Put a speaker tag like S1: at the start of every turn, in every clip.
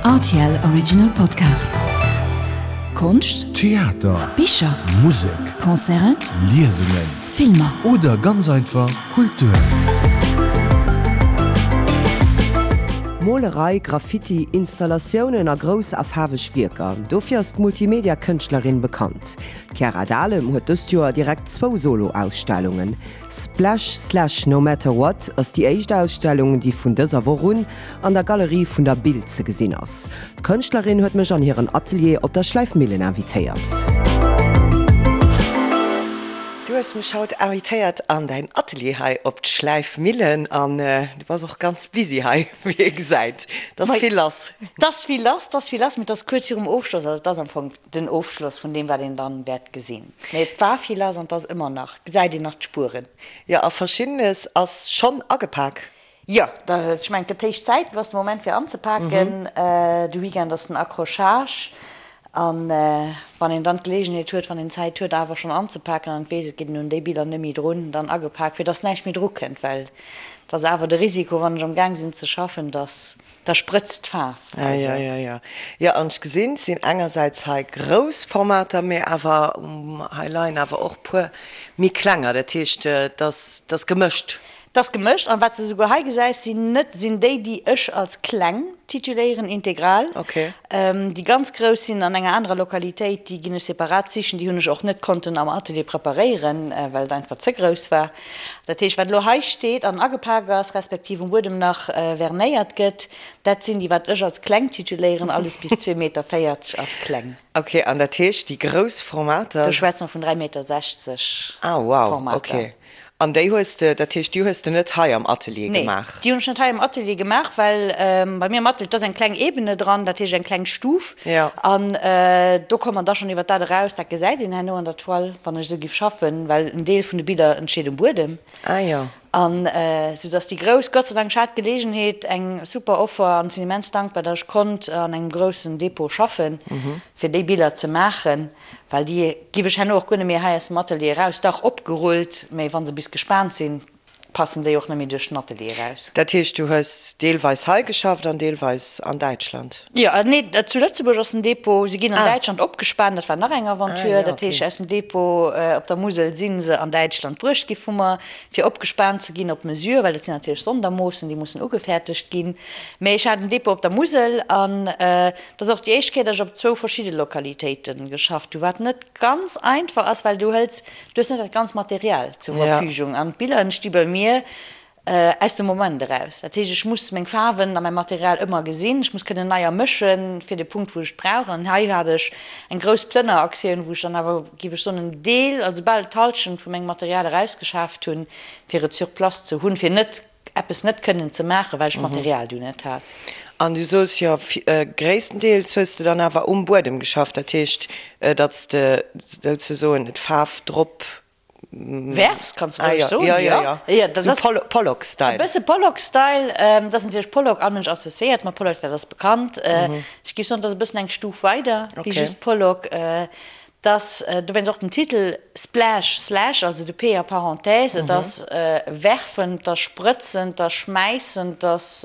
S1: Rtl Original Podcast. Konscht,
S2: Theater,
S1: Bicher,
S2: Musek,
S1: Concerten,
S2: Liesungen,
S1: Filmer.
S2: Oder ganz einfach Kultur.
S3: Molerei, Graffiti, Installatiounen a grouss a faarweg Wierker, dofir ass d'Multimedia-Kënschtlerin bekannt. D'Chiara Dahlem huet dëst Joer direkt zwou Solo-Ausstellungen. Splash Slash No Matter What ass déi éischt Ausstellung, déi vun dëser Woch un an der Galerie vun der Bild ze gesinn ass. D'Kënschtlerin huet mech an hiren Atelier op der Schläifmillen invitéiert. Du hues mech haut invitéiert an däin Atelier hei op d'Schläifmillen an du bass och ganz busy hei, wéi ee gesäit. Et ass vill lass.
S4: Et ass vill lass, et ass vill lass, mee et ass kuerz virum Ofschloss, also et ass am Fong den Ofschloss vun deem, wat een dann wäert gesinn. Mee et war vill lass an et ass ëmmer nach, gesäit een nach d'Spueren.
S3: Jo, a Verschiddenes ass schonn agepak.
S4: Jo, ech mengen, et gëtt héich Zäit, elo ass de Moment fir anzepaken. De Weekend ass den Accrochage an wann een dann d'Geleegenheet huet, wann een Zäit huet, awer schonn anzepaken an et weess, et geet een un déi Biller net méi drun, dann agepak, fir dass näischt méi drukënnt, well et ass awer de Risiko, wann ech am Gaang sinn ze schaffen, dass Da sprëtzt d'Faarf.
S3: Ah jo, jo, jo. Jo, an ech gesinn, et sinn engersäits hei grouss Formater, mee awer hei leien awer och puer méi klenger. Dat heescht, et ass, et ass gemëscht.
S4: Et ass gemëscht. An wat s de souguer hei gesäis, sinn net, sinn déi, déi ech als kleng tituléieren, integral.
S3: Okay.
S4: Déi ganz grouss sinn an enger anerer Lokalitéit, déi ginn ech separat sichen. Déi hunn ech och net konnten am Atelier preparéieren, well et einfach ze grouss war. Dat heescht, wat elo hei steet an agepak ass, respektiv um Buedem nach vernéiert gëtt, dat sinn déi, wat ech als kleng tituléieren. Alles bis 2,40 Meter ass kleng.
S3: Ok, an dat heescht, déi grouss Formater.
S4: Do schwätze mer vun 3,60 Meter
S3: Ah, wow,
S4: Formater.
S3: ok. An déi hues de, dat heescht, déi hues de net hei am Atelier gemaach?
S4: Nee, déi hunn ech net hei am Atelier gemaach, well bei mir am Atelier, et ass eng kleng Ebene dran, dat heescht eng kleng Stuf.
S3: Jo.
S4: An do komme mer da schonn iwwer dat eraus, dat gesäit een herno an der Toile, wann ech esou giff schaffen, well en Deel vun de Biller entsteet um Buedem.
S3: Ah jo.
S4: An sou dass déi grouss, Gott sei Dank, ech hat d'Geleegenheet, eng super Offer an sinn immens dankbar, dass ech konnt an engem groussen Depot schaffen, fir déi Biller ze maachen, well déi giff ech herno och guer net méi hei aus dem Atelier eraus, dach opgerullt, mä wa se bis gespaant sinn, passen déi och net méi duerch den Atelier eraus.
S3: Dat heescht, du hues deelweis hei geschafft an deelweis an Däitschland?
S4: Jo, nee, zu Lëtzebuerg ass den Depot. Si ginn an Däitschland opgespaant, dat war nach eng Aventure. Dat heescht, aus dem Depot op der Musel si se an Däitschland bruecht gi vu mer, fir opgespaant ze ginn op Mesure, well dat sinn natierlech Sondermoossen, déi mussen ugefäertegt ginn. Mee ech hat en Depot op der Musel an dat ass och déi éischt Kéier, datt ech op zwou verschidde Lokalitéite geschafft hu, wat net ganz einfach ass, well du hëls, du hues net dat ganz Material zur Verfügung an d'Biller entsti bei mir aus dem Moment eraus. Dat heescht, ech muss meng Faarwen a mäi Material ëmmer gesinn, ech muss kënnen neier mëschen fir de Punkt, wou ech et brauch. An hei hat ech eng grouss Plënneraktioun, wou ech dann awer, géif ech soen, en Deel, also bal d'Hallschent vu mengem Material erausgeschaaft hunn, fir et sur place ze hunn, fir net eppes net kënnen ze maachen, well ech d'Material du net hat.
S3: An du soos jo, gréisstendeels hues de dann awer um Buedem geschafft, dat heescht, datt s de souzesoen d'Faarf drop
S4: werfs, kanns de roueg soen, jo.
S3: Jo, jo, jo, sou Pollock-Style.
S4: E bësse Pollock-Style, dat ass natierlech Pollock, all Mënsch associéiert mat Pollock, dat ass bekannt. Ech géif soen, dat ass e bëssen eng Stuf weider wéi just Pollock. Dass, dowéinst och den Titel Splash Slash, also de P a Parenthèse, et ass werfend, 't ass sprëtzend, 't ass schmäissend, 't ass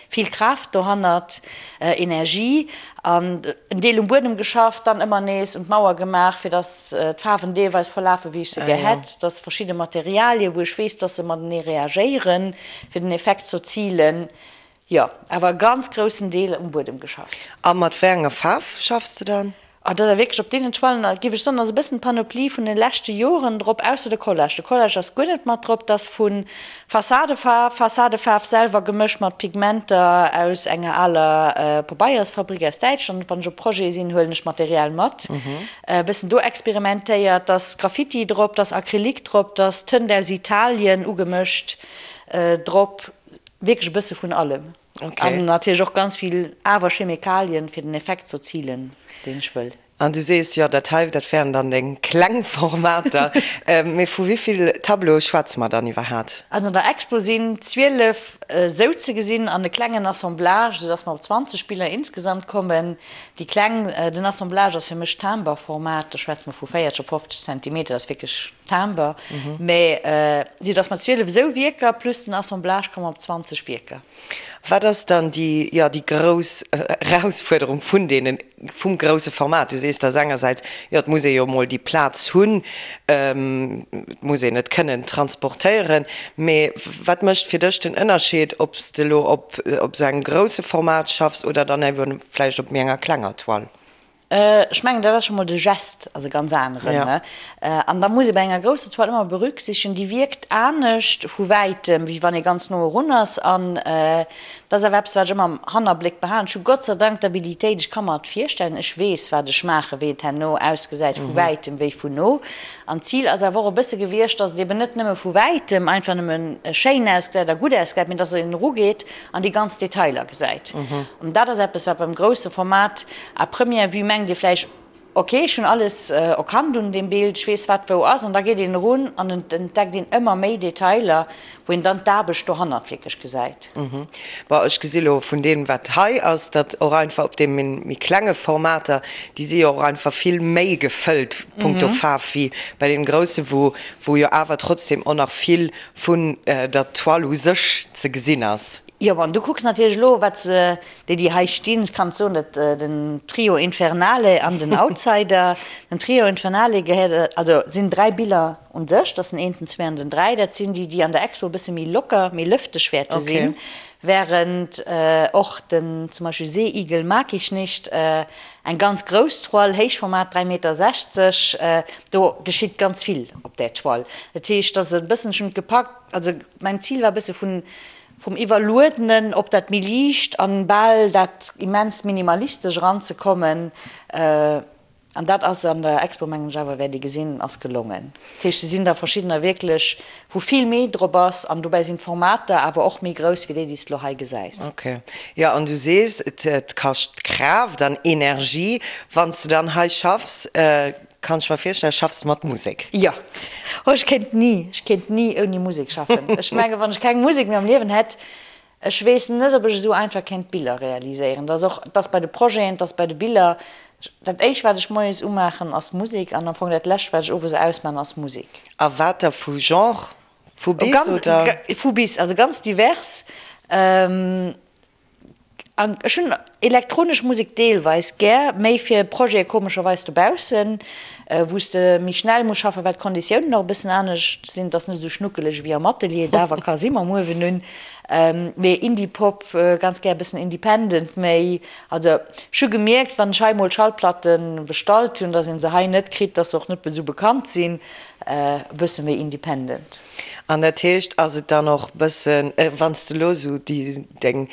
S4: vill Kraaft dohannert, Energie. An en Deel um Buedem geschafft, dann ëmmer nees un d'Mauer gemaach, fir dass d'Faarwen deelweis verlafen, wéi ech se gär hätt. Dass verschidde Materialien, wou ech weess, dass se matenee reagéieren, fir den Effekt z'erzilen. Jo, awer e ganz groussen Deel um Buedem geschafft.
S3: A mat wéi enger Faarf schaffs de dann?
S4: Ah, dat ass wierklech op deenen Toilen, géif ech soen, ass e bëssen d'Panoplie vun de leschte Joren drop, ausser de Collage. De Collage ass guer net mat drop, dat ass vu Fassadefaarf, Fassadefaarf selwer gemëscht mat Pigmenter aus enger aler Pabeiersfabrik aus Däitschland. Wann ech op Projete sinn, huelen ech Material mat. E bëssen do experimentéiert, da ass Graffiti drop, da ass Acrylique drop, da ass Tënt aus Italien ugemëscht drop. Wierklech e bësse vun allem. An natierlech och ganz vill awer Chemikalien, fir den Effekt z'erzilen, deen ech wëll.
S3: An du sees, jo, dat hei, dat wären dann deng kleng Formater. Mee vu wéi vill Tableaue schwätze mer dann iwwerhaat?
S4: Also an der Expo sinn 12 souzegesinn an e klengen Assemblage, soudass mer op 20 Biller insgesamt kommen. Déi kleng, den Assemblage ass fir mech Timber-Format, do schwätze mer vu 40 op 50 Zentimeter, dat ass wierklech Timber, mä sou datt mer 12 esou Wierker plus den Assemblage komme mer op 20 Wierker.
S3: Wat ass dann déi, jo, déi grouss Erausfuerderung vun deenen, vum grousse Format? Du sees, dass engersäits, jo, et muss ee jo emol déi Plaz hunn, et muss een et kënnen transportéieren, mee wat mécht fir dech den Ënnerscheed, ob s de elo op esou engem grousse Format schaffs oder dann ebe vläicht op méi enger klenger Toile?
S4: Ech mengen, dat ass scho mol de Geste ass e ganz aneren. An da muss ee bei enger grousser Toile ëmmer berücksichtegen, déi wierkt anescht vu wäitem, wéi wann ee ganz no erun ass. An dat ass awer eppes, wat ech ëmmer am Hannerbléck behalen. Ech hu Gott sei Dank d'Habilitéit, ech ka mer et virstellen, ech weess, wat ech maachen, wéi et herno ausgesäit vu wäitem wéi vun no. An d'Zil ass awer och e bësse gewiescht, dass et eben net nëmme vu wäitem einfach nëmme schéin ausgesäit a gutt ausgesäit, mee dass een erugeet an déi ganz Detailer gesäit. An dat ass eppes, wat beim grousse Format à première vue mengt ee vläicht, ok, ech hunn alles erkannt un deem Bild, ech weess, wat wou ass. An da geet een erun an et entdeckt een ëmmer méi Detailer, wou een dann d'Aarbecht dohannert wierklech gesäit.
S3: Bon, ech gesi lo vun deem, wat hei ass, datt och einfach op deem méi klenge Formater, déi si jo och einfach vill méi gefëllt punkto Faarf wéi bei deem grousse, wou wou jo awer trotzdem och nach vill vun der Toile u sech ze gesinn ass.
S4: Jo, bon, du kucks natierlech elo, wat se, déi, déi hei stinn, ech kann et soen, dat den Trio Infernale an den Outsider. Den Trio Infernale gehéiert, also sinn 3 Biller un sech, dat ass den een, den zwee an den 3, dat sinn déi, déi an der Expo e bësse méi locker, méi lëfteg wäerte sinn, während och den zum Beispill Seeigel mag ich nicht, eng ganz grouss Toile, Héichformat, 3 Meter 60, do geschitt ganz vill op där Toile. Dat heescht, dass e bëssen, ech hunn et gepackt, also mäin Zil war e bësse vun Vum Iwwerluedenen op dat méi liicht an bal dat immens minimalistesch eranzekommen. An dat ass an der Expo, mengen ech awer, wäert ee gesinn, ass gelongen. Dat heescht, se sinn der verschiddener wierklech, wou vill méi drop ass an dobäi sinn d'Formater awer och méi grouss wéi déi, déi s de lo hei gesäis.
S3: Ok. Jo, an du sees, et kascht Kraaft an Energie, wann s de dann hei schaffs. Kann ech mer virstellen, schaffs de mat Musek?
S4: Jo. Oh, ech kéint ni, ech kéint ni ouni Musek schaffen. Ech mengen, wann ech keng Musek méi am Liewen hätt, ech weess net, ob ech esou einfach kéint Biller realiséieren. Dat ass och, dat ass bei de Projeten, dat ass bei de Biller. Dat éischt, wat ech moies umaachen, ass Musek an am Fong dat lescht, wat ech owes ausmaachen, ass Musek.
S3: A wat da vu Genre? Vu bis, oder?
S4: Vu bis, also ganz divers. An ech hunn elektronesch Musek deelweis gär, méi fir Projete komescherweis dobaussen, wou s de méi schnell muss schaffen, well d'Konditiounen och e bëssen anescht sinn. Et ass net esou schnuckeleg ewéi am Atelier, et awer ka si mam Uewen un. Mee Indie-Pop, ganz gär e bëssen independent méi. Also ech hu gemierkt, wann ech hei mol Schallplatte bestallt hunn, datt ee se hei net kritt, datt se och net esou bekannt sinn. E bësse méi independent.
S3: An dat heescht, ass et dann och bëssen, wann s de elo esou déi deng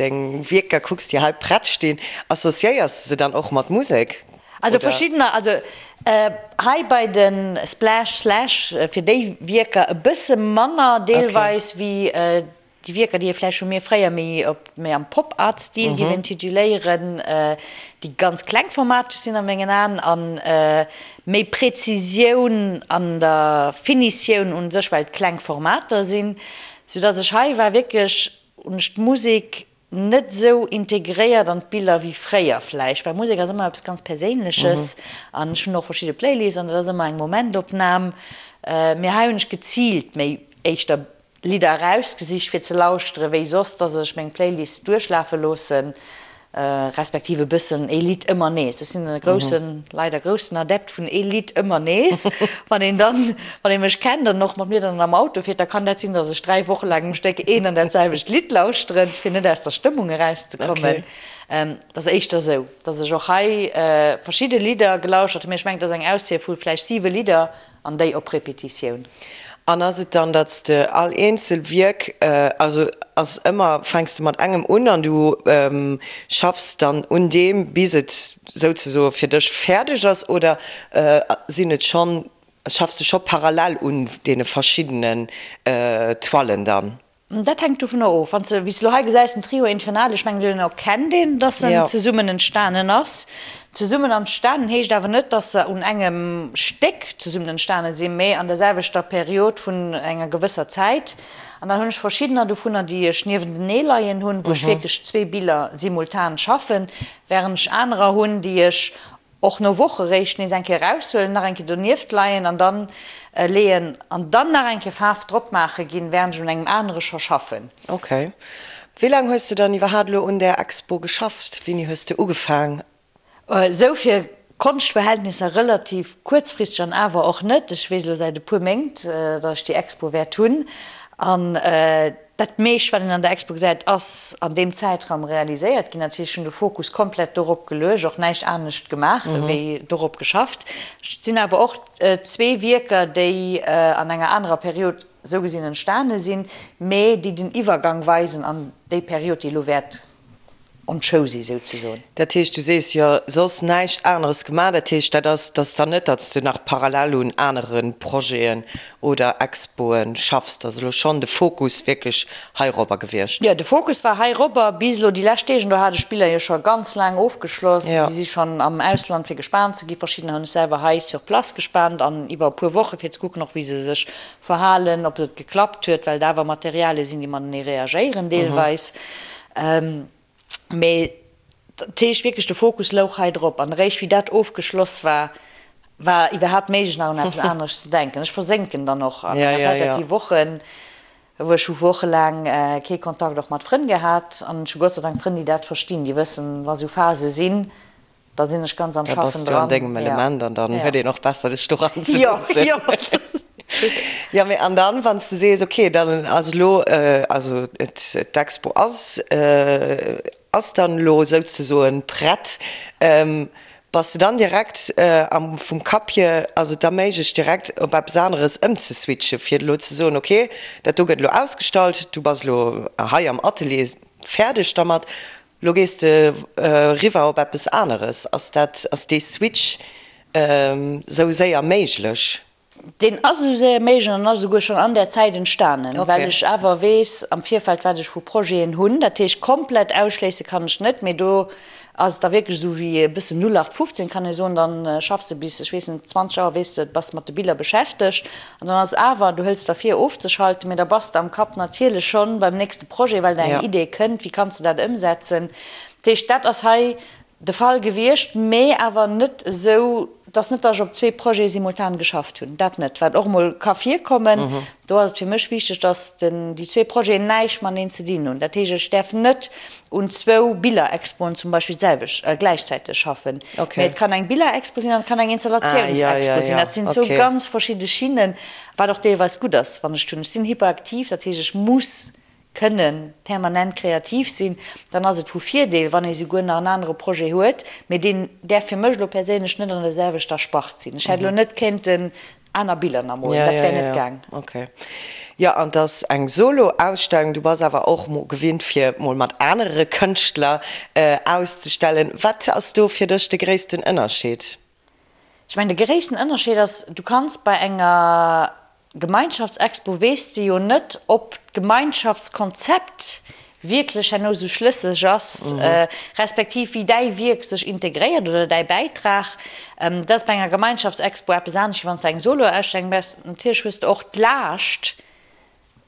S3: deng Wierker kucks, déi hei prett stinn, associéiers de se dann och mat Musek,
S4: Also oder? verschiddener, also hei bei de Splash Slash fir déi Wierker e bësse manner deelweis wéi Déi Wierker, déi ee vläicht vu mir fréier méi op méi am Pop-Art-Stil géif intituléieren, déi ganz klengformateg sinn a mengen Aen a méi Präzisioun an der Finitioun un sech, well et kleng Formater sinn, soudatt ech hei war wierklech, hunn ech d'Musek net esou integréiert an d'Biller wéi fréier vläicht, well Musek ass ëmmer eppes ganz Perséinleches an ech hunn och verschidde Playlists an dat ass ëmmer eng Momentopnam, mee hei hunn ech geziilt méi éischter Lidder erausgesicht fir ze lauschteren, wéi soss, dass ech meng Playlist duerchlafe loossen, respektiv e bëssen ee Lidd ëmmer nees. Ech sinn e groussen, leider groussen Adept vun ee Lidd ëmmer nees. Wann een dann, wann ee mech kennt an och mat mir dann am Auto fiert, da kann dat sinn, dass ech 3 Woche laang um Stéck een an dat selwecht Lidd lauschteren, fir net aus der Stëmmung erauszekommen. Et ass éischter esou, dass ech och hei verschidde Lidder gelauschtert hunn, mee ech mengen, et ass eng Auswiel vu vläicht 7 Lidder, An déi op Repetitioun.
S3: An ass et dann, datt s de all eenzel Wierk, also ass ëmmer, fänks de mat engem un an du schaffs dann un deem, bis et souzesoe fir dech fäerdeg ass, oder sinn et schonn, schaffs de scho parallel un deene verschiddenen Toilen dann?
S4: Dat hänkt dovunner of. Wann s de, wéi s de elo hei gesäis, den Trio Infernal, ech mengen, deen erkennt een, dass en zesummen entstanen ass. Zesummen entstanen heescht awer net, dass se un engem Stéck zesummen entstane sinn, mä an der selwechter Period vun enger gewësser Zäit. An dann hunn ech verschiddener dovunner, déi ech niewentenee leien hunn, wou ech wierklech zwee Biller simultan schaffen, wärend ech anerer hunn, déi ech Och no Woche réischt nees eng Kéier eraushuelen, nach eng Kéier donieft leien an dann leeën an dann nach eng Kéier Faarf drop maache ginn, während ech un engem anere scho schaffen.
S3: Ok. Wéi laang hues de dann iwwerhaat elo un där Expo geschafft? Wéini hues de ugefaang?
S4: Esou fir Konschtverhältnisser relativ kuerzfristeg an awer och net. Ech weess elo säit e puer Méint, datt ech déi Expo wäert hunn. An dat meescht, wat een an der Expo gesäit, ass an deem Zäitraum realiséiert ginn. Dat heescht, ech hunn de Fokus komplett dorop geluecht, och näischt anescht gemaach wéi dorop geschafft. Et sinn awer och zwee Wierker, déi an enger anerer Period esou gesinn entstane sinn, mä déi den Iwwergang weisen an déi Period, déi elo wäert on show si souzesoen.
S3: Dat heescht, du sees jo soss näischt aneres gemaach. Dat heescht, dat ass, dat ass dann net, datt s de nach parallel un anere Projeten oder Expoe schaffs. Dat ass elo schonn de Fokus wierklech heirobber gewiescht.
S4: Jo, de Fokus war heirobber bis elo déi lescht Deeg. An do hat ech d'Biller jo scho ganz laang ofgeschloss. Déi si schonn am Ausland fir gespaant ze gi. Verschiddener hunn ech selwer hei sur place gespaant an iwwer e puer Woche fir ze kucken och wéi se sech verhalen, ob et geklappt huet, well et awer Materialie sinn, déi matenee reagéieren deelweis. Mee dat heescht wierklech, de Fokus louch hei drop. An eréischt wéi dat ofgeschloss war, war iwwerhaapt méiglech nach un eppes aneres ze denken. Ech versénken dann och an enger Zäit, dat si Wochen, wou ech hu wochelaang kee Kontakt och mat Frënn gehat. An ech hu Gott sei Dank Frënn, déi dat verstinn, déi wëssen, wa sou Phase sinn, Da sinn ech ganz am
S3: Schaffen dran. Da bass du an dengem Element an dann huet een och besser dech doran ze loossen. Jo, jo. Jo, mee an dann, wann s de sees, okay, dann ass elo, also d'Expo ass, ass dann elo souzesoen prett, bass de dann direkt am, vum Kapp hier, ass et da méiglech direkt op eppes aneres ëmzeswitchen, fir elo ze soen, okay, dat do gëtt elo ausgestallt, du bass elo hei am Atelier fäerdeg dermat, Lo gees de eriwwer op eppes aneres. Ass dat, ass dee Switch esou séier méiglech?
S4: Deen ass esou séier méiglech an ass esouguer schonn an där Zäit entstanen, well ech awer weess am Virfeld, wat ech vu Projeten hunn. Dat heescht, komplett ausschléisse kann ech net, mee do ass et da wierklech esou wéi e bëssen 0815, kann ee soen. Dann schaffs de bis, ech weess net, 20 Auer, weess de, bass mat de Biller beschäftegt An dann ass awer, du hëls der vir ofzeschalten, mee da bass de am Kapp natierlech schonn beim nächste Projet, well der eng Idee kënnt, wéi kanns de dat ëmsetzen. Dat heescht, dat ass hei de Fall gewiescht, mee awer net esou, dass net, dass ech op zwee Projete simultan geschafft hunn, dat net, wat och emol ka virkommen. Do ass et fir mech wichteg, dass den, déi zwee Projeten näischt mateneen ze dinn hunn. Dat heescht, ech däerf net un zwou Billerexpoen zum Beispill d'selwecht, gläichzäiteg schaffen. Mee et kann eng Billerexpo sinn an et kann eng Installatiounsexpo sinn. Dat sinn zwou ganz verschidde Schinnen, wat och deelweis gutt ass, wann ech hunn. Ech sinn hyperaktiv, dat heescht, ech muss kënne permanent kreativ sinn. Dann ass et vu Virdeel, wann ee souguer nach en anere Projet huet, mee deen däerf fir mech elo perséinlech net an der selwechter Spart sinn. Ech hätt elo net kéinten Aner Biller nach molen, dat wär net gaang.
S3: Ok. Jo, an 't ass eng Solo-Ausstellung. Du bass awer och mol gewinnt fir mol mat anere Kënschtler auszestellen. Wat ass do fir dech de gréissten Ënnerscheed?
S4: Ech mengen, de gréissten Ënnerscheed ass, du kanns bei enger Gemeinschaftsexpo, weess de jo net, ob d'Gemeinschaftskonzept wierklech herno esou schlësseg ass, respektiv wéi däi Wierk sech integréiert oder däi Bäitrag. Dat ass bei enger Gemeinschaftsexpo eppes anescht, wéi wann s de eng Soloausstellung méchs. Natierlech hues de och d'Laascht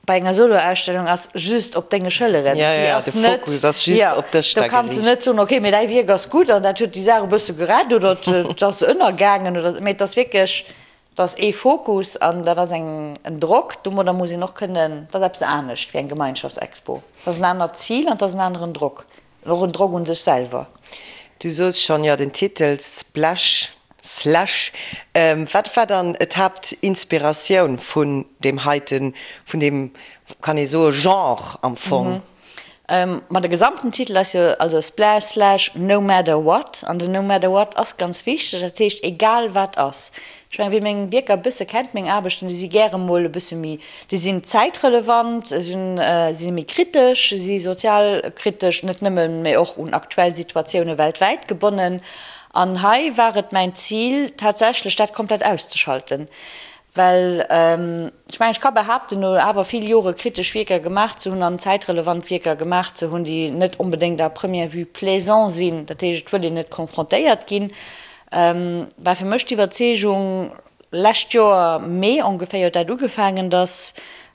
S4: bei enger Soloausstellung ass just op denge Schëlleren. Déi ass net, jo, do kanns de net soen, okay, mee däi Wierk ass gutt an dat huet déi Saach e bësse gerett oder et ass ënnergaangen oder, mee et ass wierklech, Et ass ee Fokus an dat ass eng en Drock. Domadder muss een och kënnen, dat ass eppes anescht wéi eng Gemeinschaftsexpo. Dat ass en anert Zil an dat ass en aneren Drock, och en Drock un sech selwer.
S3: Du soos schonn, jo, den Titel Splash, Slash, wat war dann d'Haaptinspiratioun vun deem heiten, vun deem, kann ee soe Genre am Fong?
S4: Ma de gesamten Titel ass jo also Splash Slash No Matter What an den No Matter What ass ganz wichteg, dat heescht egal wat ass. Ech mengen, wie meng Wierker e bësse kennt, meng Aarbechten, déi si gäre mol e bësse méi, déi sinn zäitrelevant, si si méi kritesch, si sozialkritesch, net nëmmen, mee och un aktuell Situatioune weltwäit gebonnen. An hei war et mäin Zil tatsächlech dat komplett auszeschalten, Well ech mengen, ech ka behaapten, no awer vill Jore kritesch Wierker gemaach ze hunn an zäitrelevant Wierker gemaach ze hunn, déi net onbedéngt à première vue plaisant sinn, dat heescht, et wëll een net confrontéiert ginn, war fir mech d'Iwwerzeegung, lescht Joer Mee ongeféier huet dat ugefaangen, datt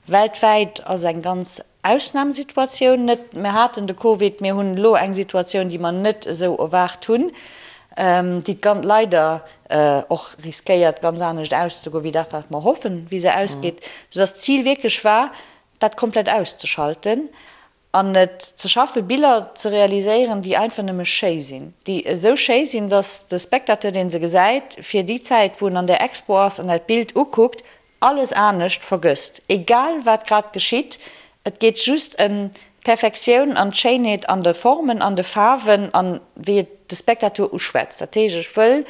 S4: weltwäit ass eng ganz Ausnamsituatioun net. Mir haten de Covid, mir hunn elo eng Situatioun, déi mer net esou erwaart hunn, déi d'gan leider och riskéiert, ganz anescht auszegoen, wéi dat, wat mer hoffen, wéi se ausgeet, soudass d'Zil wierklech war, dat komplett auszeschalten. An et ze schaffen, Biller ze realiséieren, déi einfach nëmme schéi sinn, déi esou schéi sinn, dass de Spectateur, dee se gesäit, fir déi Zäit, wou en an där Expo ass an dat Bild ukuckt, alles anescht vergësst, egal wat grad geschitt. Et geet just ëm d'Perfektioun an d'Schéinheet an de Formen, an de Faarwen an wéi et de Spectateur uschwätzt. Dat heescht, ech wëll,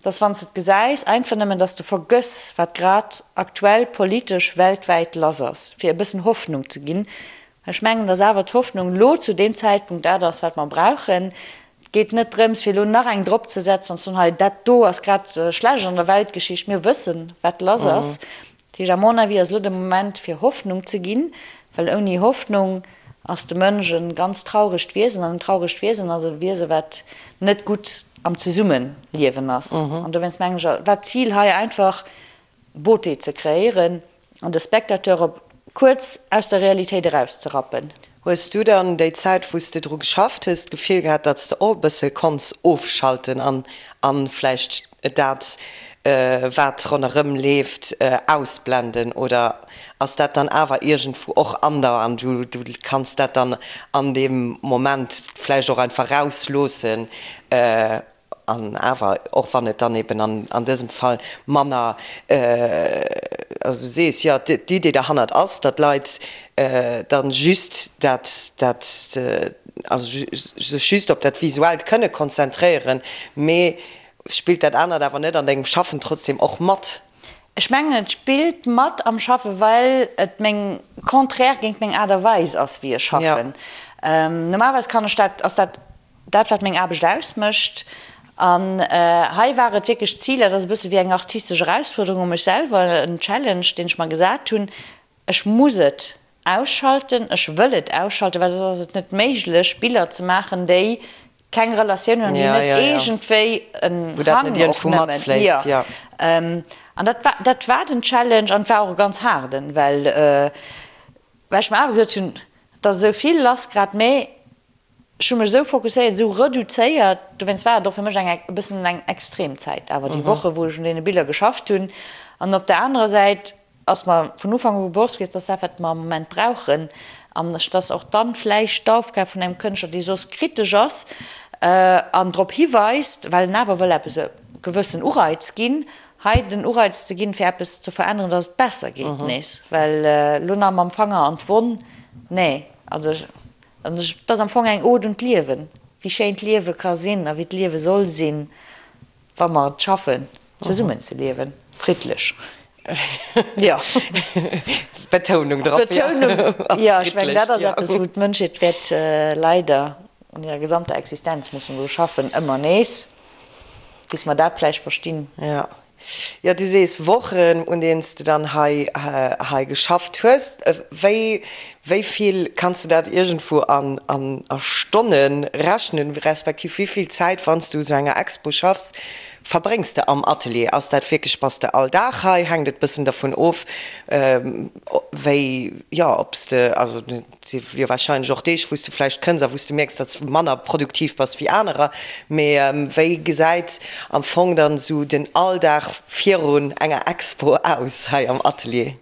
S4: dass wann s de et gesäis, einfach nëmmen, dass de vergëss, wat grad aktuell politesch weltwäit lass ass, fir e bëssen Hoffnung ze ginn. Ech mengen, dass awer d'Hoffnung elo zu deem Zäitpunkt dat ass, wat mer brauchen. Et geet net drëms, fir elo nach eng dropzesetzen an ze soen, hei dat do ass grad schlecht an der Weltgeschicht. Mir wëssen, wat lass ass. Dat heescht, à mon avis ass elo de Moment, fir Hoffnung ze ginn, well ouni Hoffnung ass de Mënsch e ganz trauregt Wiesen. An en trauregt Wiesen ass e Wiese wat net gutt am Zesummeliewen ass. An dowéinst mengen ech, war d'Zil hei einfach, Beauté ze kreéieren an de Spectateur op kuerz aus der Realitéit erauszerappen.
S3: Hues du dann déi Zäit wou s de dru geschafft hues d'Gefill gehat, datt s de och e bësse konns ofschalten an an vläicht dat wat ronderëm leeft ausblenden oder ass dat dann awer iergendwou och an der an du du kanns dat dann an deem Moment vläicht och einfach rausloossen? An awer, och wann et dann eben an an dësem Fall manner, also du sees, jo, d'Idee derhannert ass, datt d'Leit dann just dat, dat, also sech just op dat Visuellt kënne konzentréieren, mee spillt dat anert awer net an dengem Schaffen trotzdem och mat?
S4: Ech mengen, et spillt mat am Schaffen, well et meng, contraire géint meng Aart a Weis ass, wéi ech schaffen. Normalerweis kann ech dat, ass dat Dat wat meng Aarbecht ausmécht. An hei war et wierklech d'Zil, dat ass e bësse wéi eng artistesch Erausfuerderung u mech selwer, en Challenge, deen ech mer gesat hunn, ech muss et ausschalten, ech wëll et ausschalten, well soss ass et net méiglech Biller ze maachen, déi keng Relatioun hunn an déi net iergendwéi en Hang och nëmmen, jo. An dat war, dat war den Challenge an et war och e ganz haarden, well well ech mer awer gesot hunn, et ass esou vill lass grad, mä Ech hu mech esou fokusséiert, esou reduzéiert, dowéinst war et och fir mech eng e bëssen eng extrem Zäit awer, déi Woche wou ech un deene Biller geschafft hunn. An op der anerer Säit ass mer vun Ufank u bewosst gewiescht, dass dat wat mer am Moment brauchen, an ech dass och dann vläicht d'Aufgab vun engem Kënschtler, dee soss kritesch ass an drop hiweist, well en awer wëll eppes e gewëssen Ureiz ginn, hei den Ureiz ze ginn, fir eppes ze veränneren, dass et besser geet nees. Well elo nach mam Fanger an d'Wonn, nee, also An et ass am Fong eng Ode un d'Liewen, wéi schéin d'Liewe ka sinn a wéi d'Liewe soll sinn, wa mer et schaffen, zesummen ze liewen, friddlech. Jo.
S3: Betounung drop, jo.
S4: Betounung, jo. Ech mengen, dat ass eppes, wou d'Mënschheet wäert leider an hirer gesamter Existenz mussen dru schaffen, ëmmer nees, bis mer dat vläicht verstinn.
S3: Jo. Jo, du sees Wochen, un deenen s de dann hei hei geschafft hues. Wéi wéi vill kanns de dat iergendwou an an a Stonne rechnen, respektiv wéi vill Zäit, wann s du u sou enger Expo schaffs, verbréngs de am Atelier? Ass dat wierklech, bass de all Dag hei? Hänkt et bëssen dervun of, wéi, jo, ob s de, also Et si jo warscheinlech och Deeg, wou s de vläicht kënns a wou s de mierks, datt s de manner produktiv bass wéi anerer. Mee wéi gesäit am Fong dann esou den Alldag virun enger Expo aus hei am Atelier?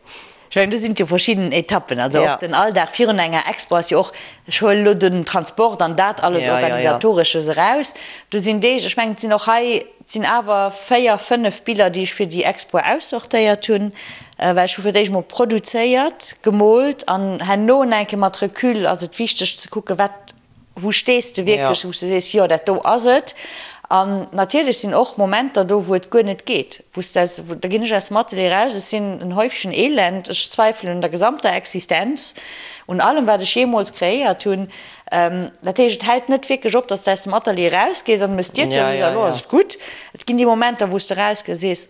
S4: Ech mengen, do sinn et jo verschidden Etappen. Also och den Alldag virun enger Expo ass jo och, ech huelen elo den Transport an dat alles Organisatoresches eraus, do sinn Deeg, ech mengen, et sinn och hei, Et sinn awer 4, 5 Biller, déi ech fir déi Expo aussortéiert hunn, well ech hu fir d'éischt mol produzéiert, gemoolt an herno eng Kéier mat Recul ass et wichteg ze kucken, wat, wou stees de wierklech, wou s de sees, jo dat do ass et. An natierlech sinn och Momenter do, wou et guer net geet, wou s de aus, da ginn ech aus dem Atelier eraus, ech sinn en Häufchen Elend, ech zweifelen un der gesamter Existenz, un allem wat ech jeemools kreéiert hunn. Dat heescht, et hält net wierklech op, datt s de aus dem Atelier erausgees an du méchs d'Dier zou a sees, elo ass et gutt. Et ginn déi Momenter, wou s de erausgees a sees,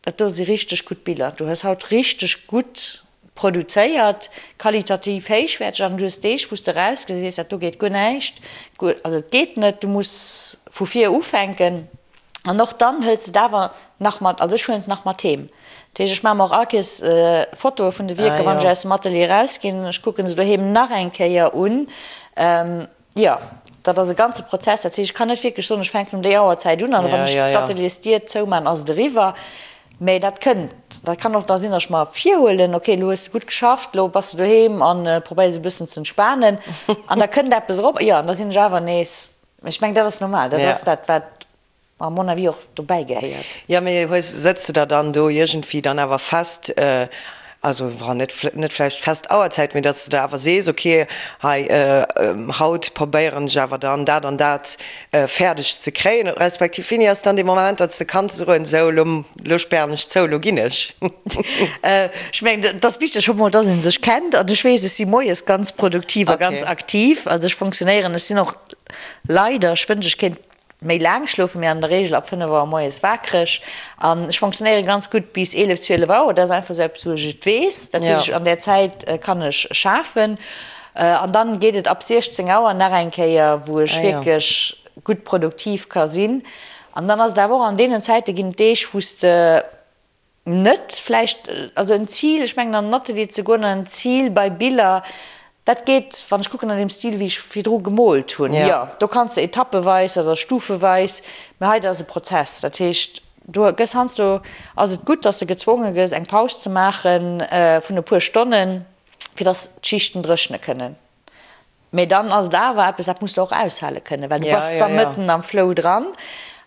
S4: dat do si richteg gutt Biller, du hues haut richteg gutt produzéiert, qualitativ héichwäerteg. An du hues Deeg, wou s de erausgees a sees, dat do geet guer näischt, also et geet net, du muss vu vir ufänken. An och dann hëls de et awer nach mat, also ech huelen et nach mat heem. Dat heescht, ech maache mer och all Kees Fotoe vun de Wierker, wann ech aus dem Atelier erausginn. Ech kucke se doheem nach eng Kéier un. Jo, dat ass e ganze Prozess. Dat heescht, ech kann net wierklech soen, ech fänken um déi Auerzäit un an wann ech d'Ateliersdier zoumaachen, ass et eriwwer. Mä dat kënnt, dat kann och da sinn, datt ech mer virhuelen, ok, elo hues de gutt geschafft, elo bass de doheem a probéiers e bëssen ze entspanen an da kënnt eppes erop, jo, an da sinn ech awer nees, mä ech mengen, dat ass normal, dat ass dat, wat à mon avis och dobäi gehéiert.
S3: Jo, mee hues, sëtz de der dann do iergendwéi dann awer fest, also net, net vläicht fest Auerzäit, mee datt s de der awer sees, ok, hei haut probéieren ech awer dann dat an dat fäerdeg ze kréien, respektiv wéini ass dann dee Moment, datt s de kanns soen, sou elo, elo spären ech zou, elo ginn ech?
S4: Ech mengen, et ass wichteg scho mol, datt ee sech kennt an ech weess, ech si moies ganz produktiv a ganz aktiv, also ech funktionéieren, ech sinn och leider, ech wënsch ech kéint méi laang schlofen, mee an der Reegel ab 5 Auer moies waakreg an ech funktionéiere ganz gutt bis 11, 12 Auer. Dat ass einfach esou eppes, wou ech et weess. Dat heescht, an där Zäit kann ech schafen an dann geet et ab 16 Auer nach eng Kéier, wou ech wierklech gutt produktiv ka sinn. An dann ass et awer och, an deenen Zäite ginn et Deeg, wou s de Net vläicht, also en Zil, ech mengen an den Atelier ze goen an en Zil bei Biller, dat geet, wann ech kucken an deem Stil wéi ech virdru gemoolt hunn, jo, do kanns de etappeweis oder stufeweis, mä hei dat ass e Prozess, dat heescht do gëss heiansdo, ass et gutt, datt s de gezwonge gëss eng Paus ze maache vun e puer Stonnen, fir datt d'Schichten dréchne kënnen. Mee dann ass et awer eppes, dat muss de och aushale kënnen, well du bass da mëtten am Flow dran.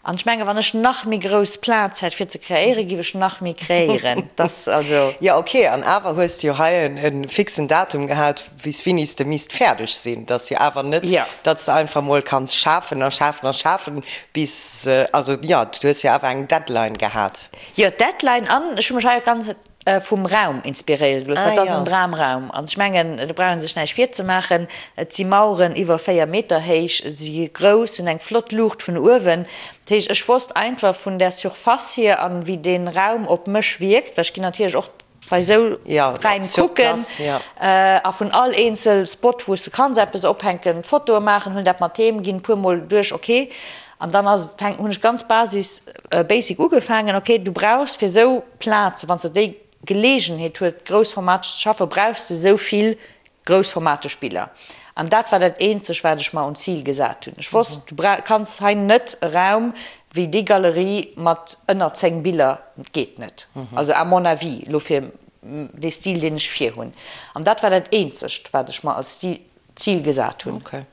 S4: An ech menge wann ech nach méi grouss Plaz hätt fir ze kreéieren, giff ech nach méi kreéieren. Dass also.
S3: Jo ok, an awer hues de jo hei e fixen Datum gehat, bis wéini s de misst fäerdeg sinn. Et ass jo awer net, datt s de einfach mol kanns schafen a schafen a schafen bis, also jo, du hues jo awer eng Deadline gehat.
S4: Jo, d'Deadline an ech hu mech hei och ganz. Vum Raum inspiréiere gelooss. Dat ass en Dramraum. An ech mengen, do brauch ee sech näischt virzemaachen. Et si Maueren iwwer 4 Meter héich, si gi grouss, hunn eng flott Luucht vun uewen. Dat heescht, ech wosst einfach vun där Surface hier an wéi dee Raum op mech wierkt, well ech ginn natierlech och bei esou Räim kucken a vun all eenzel Spot, wou s de kanns eppes ophänken, Fotoe maachen, hunn dat mat heem, ginn e puermol duerch, ok. An dann ass et, hunn ech ganz Basis, basic ugefaangen, ok, du brauchs fir esou Plaze, wann s de déi Geleegenheet huet, groussformateg ze schaffen, brauchs de esou vill groussformateg Biller. An dat war dat eenzeg, wat ech mer un Zil gesat hunn. Ech wosst, du kanns hei net e Raum wéi déi Galerie mat ënner 10 Biller, dat geet net. Also à mon avis, elo fir dee Stil, deen ech virhunn. An dat war dat eenzegt, wat ech mer als Stil Zil gesat hunn.
S3: Ok.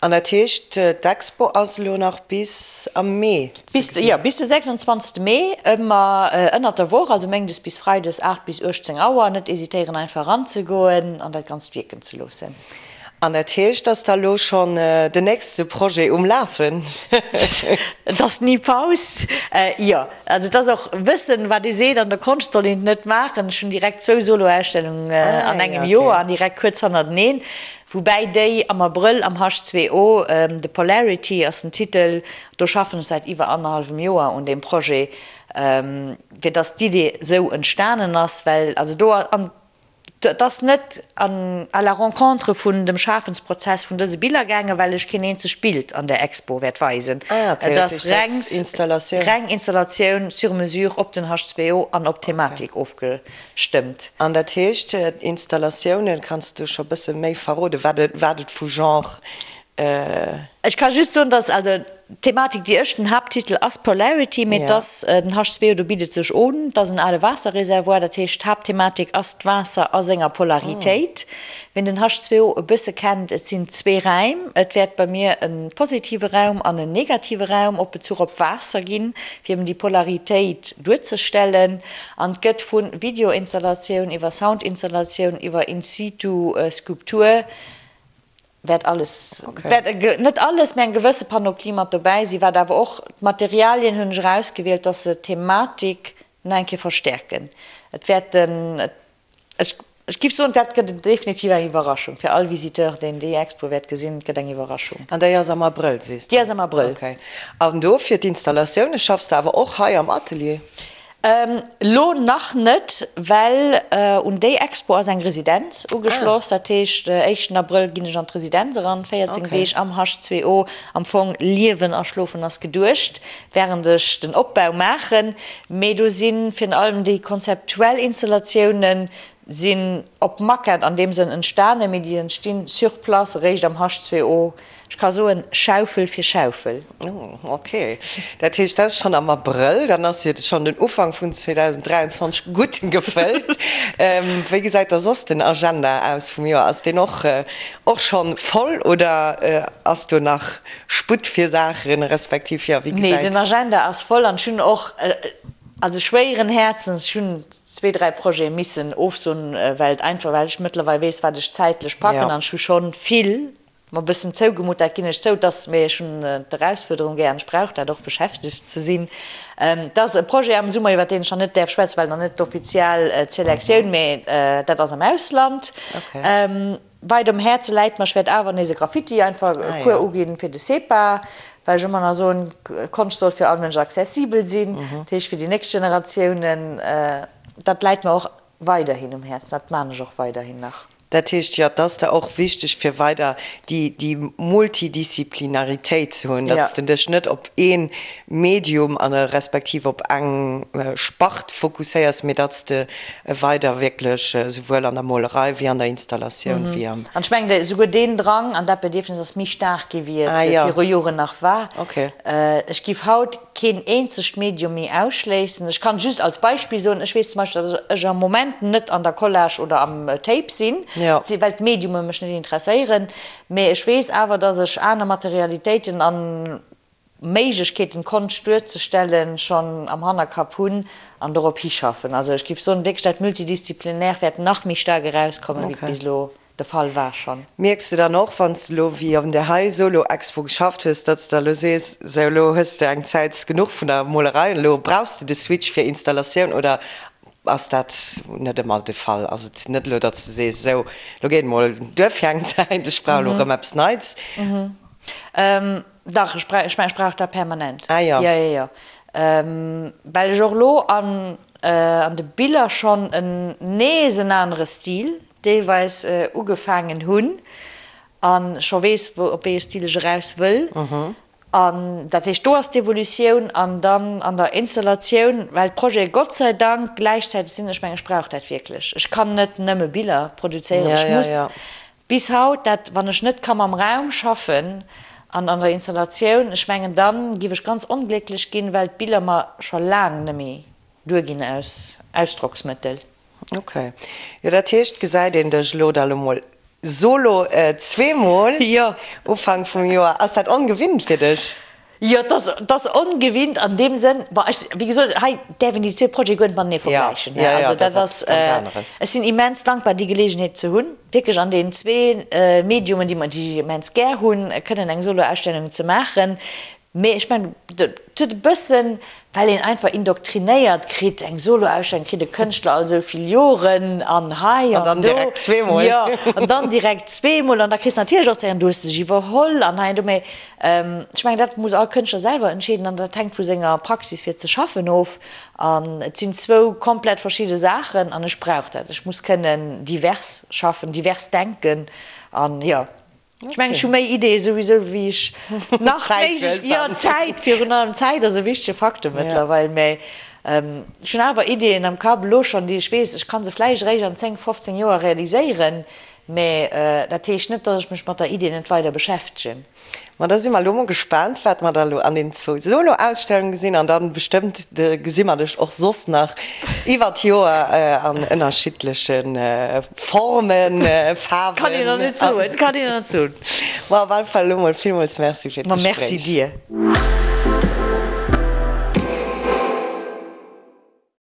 S3: An dat heescht, d'Expo ass elo nach bis am Mee ze gesinn?
S4: Jo, bis de 26. Mee, ëmmer ënnert der Woch, also méindes bis freides 8 bis 18 Auer. Net hésitéieren einfach eranzegoen an dat Ganzt wierken ze loossen.
S3: An dat heescht, ass da elo schonn den nächste Projet um Lafen?
S4: Et ass ni Paus. Jo, also et ass och wëssen, wat ee seet, an der Konscht soll een et net maachen. Ech hunn direkt zwou Solo-Ausstellungen an engem Joer an direkt kuerz hannerteneen, woubäi déi am Abrëll am H2O, The Polarity ass den Titel, do schaffen ech säit iwwer annerhallwem Joer un deem Projet, fir datt d'Idee sou entstanen ass, well also do an Et ass net an à la rencontre vun dem Schafensprozess vun dëse Biller gaangen, well ech keen eenzegt Bild an der Expo wäert weisen. Et ass reng Installatioun sur mesure op den H2O an op d'Thematik ofgestëmmt.
S3: An dat heescht, d'Installatiounen, kanns du scho bësse méi verroden, wat et vu Genre
S4: Ech ka just soen, dass, also d'Thematik, déi ech, den Haapttitel ass Polarity, mee dass den H2O, do bitt et sech un, et ass en ale Waasserreservoir, dat heescht d'Haaptthematik ass d'Waasser a senger Polaritéit. Wien den H2O e bësse kennt, et sinn zwee Räim, et wäert bei mir e positive Raum an en negative Raum op Bezuch op Waasser ginn, fir eben déi Polaritéit duerzestellen. An et gëtt vu Videoinstallatioun iwwer Soundinstallatioun iwwer in-situ Skulptur, wäert alles, wäert net alles, mä eng gewësse Panoplie mat dobäi sinn, wat awer och, d'Materialien hunn ech erausgewielt, dass se d'Thematik nach eng Kéier verstärken. Et wäerten, ech, ech giff soen, dat gëtt definitiv eng Iwwerraschung fir all Visiteur, deen déi Expo wäert gesinn, et gëtt eng Iwwerraschung.
S3: An déi ass am Abrëll, sees
S4: de? Déi ass am Abrëll.
S3: Okay. An do fir d'Installatioune schaffs de awer och hei am Atelier?
S4: Lo nach net, well un déi Expo ass eng Residenz ugeschloss. Dat heescht, éischten Abrëll ginn ech an d'Residenz eran, 14 Deeg am H2O. Am Fong liewen a schlofen ass geduecht, wärend ech den Opbau maachen. Mee do si virun allem déi konzeptuell Installatiounen. Sinn op Maquette an deem Sënn entstanen, mee déi entstinn sur place eréischt am H2O. Ech ka soen, Schaufel fir Schaufel.
S3: Oh, ok. Dat heescht, dat ass schonn am Abrëll. Dann ass jo schonn den Ufank vun 2023 gutt gefëllt. Wéi gesäit da soss den Agenda aus vum Joer? Ass deen och och schonn voll oder ass do nach Sputt fir Saachen, respektiv, jo, wéi
S4: Nee,
S3: gesäit.
S4: den Agenda ass voll an ech hunn och, also schwéieren Häerzens, ech hunn zwee, dräi Projete missen ofsoen, well et einfach, well ech mëttlerweil weess, wat ech zäitlech packen an ech hu schonn vill mer e bëssen zougemutt, dat ginn ech zou, dass, mee ech hunn d'Erausfuerderung gär an ech brauch dat och, beschäftegt ze sinn. Et ass e Projet am Summer, iwwer deen ech nach net däerf schwätzen, well nach net d'offiziell d'Selektioun, mee dat ass am Ausland. Weit um Häerze läit mer, ech wäert awer nees e Graffiti einfach e Cours uginn fir de SEPA, well ech ëmmer nach soen, Konscht soll fir all Mënsch accessibel sinn, dat heescht fir déi nächst Generatiounen. Dat läit mer och weiderhin um Häerzen, dat maan ech och weiderhin nach.
S3: Dat heescht, jo, et ass der och wichteg fir weider déi déi Multidisziplinaritéit ze hunn, datt s de dech net op ee Medium an respektiv op eng Spart fokusséiers, mee datt s de weider wierklech esouwuel an der Molerei wéi an der Installatioun wéi am.
S4: An ech mengen, esouguer deen Drang an dat Bedierfnis ass méi staark gi wéi et viru Joren nach war. Ech giff haut keen eenzegt Medium méi ausschléissen. Ech kann just als Beispill soen, ech weess zum Beispill, datt ech am Moment net an der Collage oder am Tape sinn, well d'Mediume mech net interesséieren. Mee ech weess awer, datt ech aner Materialitéiten an Méiglechkeeten d'Konscht duerzestellen, schonn am Hannerkapp hunn an dorop hischaffen. Also ech géif soen, wierklech dat Multidisziplinäre wäert nach méi staark erauskommen, wéi et bis elo de Fall war schonn.
S3: Mierks de dann och, wann s de elo wéi an där hei Solo-Expo geschafft hues, datt s de elo sees, sou elo hues de eng Zäit genuch vun der Molerei an elo brauchs de de Switch fir Installatioun oder ass dat net ëmmer de Fall? Ass et net elo, datt s de sees, sou elo geet emol duer fir eng Zäit, ech brauch elo erëm eppes Neits?
S4: Dach, ech brauch, ech mengen, ech brauch dat permanent.
S3: Ah jo.
S4: Jo, jo, jo. Well ech och elo an, an de Biller schonn en, nees en anere Stil deelweis ugefaangen hunn a scho weess, wou, op wéi e Stil ech eraus wëll. An dat heescht, do ass d'Evolutioun. An dann an der Installatioun, well d'Projete Gott sei Dank gläichzäiteg sinn, ech mengen, ech brauch dat wierklech. Ech kann net nëmme Biller produzéieren, ech muss Bis haut, dat wann ech net ka mam Raum schaffen an an der Installatioun, ech mengen dann giff ech ganz onglécklech ginn, well d'Biller mer scho laang nemmi duer ginn aus Ausdrocksmëttel.
S3: Ok, jo dat heescht gesäit een dech elo da lo mol solo zweemol Ufank vum Joer. Ass dat ongewinnt fir dech?
S4: Jo, et ass, et ass ongewinnt an deem Sënn, bon, ech, wéi gesot, hei däerf een déi zwee Projete guer net matenee vergläichen, ne. Also dat ass, ech sinn immens dankbar, déi Geleegenheet ze hunn, wierklech an deenen zwee Mediumen, déi mer, déi ech immens gär hunn, kënnen eng Soloausstellung ze maachen. Mee ech mengen, et huet e bëssen, well een einfach indoktrinéiert kritt, eng Soloausstellung kritt e Kënschtler all esou vill Joren an hei an do.
S3: An dann direkt zweemol.
S4: Jo, an dann direkt zweemol an da kriss de natierlech och ze héieren, du hues dech iwwerholl an hei an do. Mee Ech mengen, dat muss all Kënschtler selwer entscheeden an dat hänkt vu senger Praxis fir ze schaffen of. An et sinn zwou komplett verschidde Saachen an ech brauch dat. Ech muss kënnen divers schaffen, divers denken an jo, ech mengen, ech hu méi Ideeë souwisou wéi ech nach méiglech, jo, Zäit, virun allem Zäit ass e wichtege Faktor mëttlerweil, mä ech hunn awer Ideeën am Kapp elo schonn, déi ech weess, ech ka se vläicht eréischt an 10, 15 Joer realiséieren, Mä dat heescht net, datt ech mech mat der Idee net weider beschäftegen.
S3: Ma da si mer elo mol gespaant, wat mer da elo an den zwou Solo-Ausstellunge gesinn. An dann bestëmmt gesi mer dech och soss nach iwwer d'Joer an ënnerschiddleche Formen, Faarwen.
S4: Kann een nach net soen, kann een nach net soen.
S3: Ma op alle Fall elo mol villmools Merci fir
S4: d'Gespréich. Ma merci dir.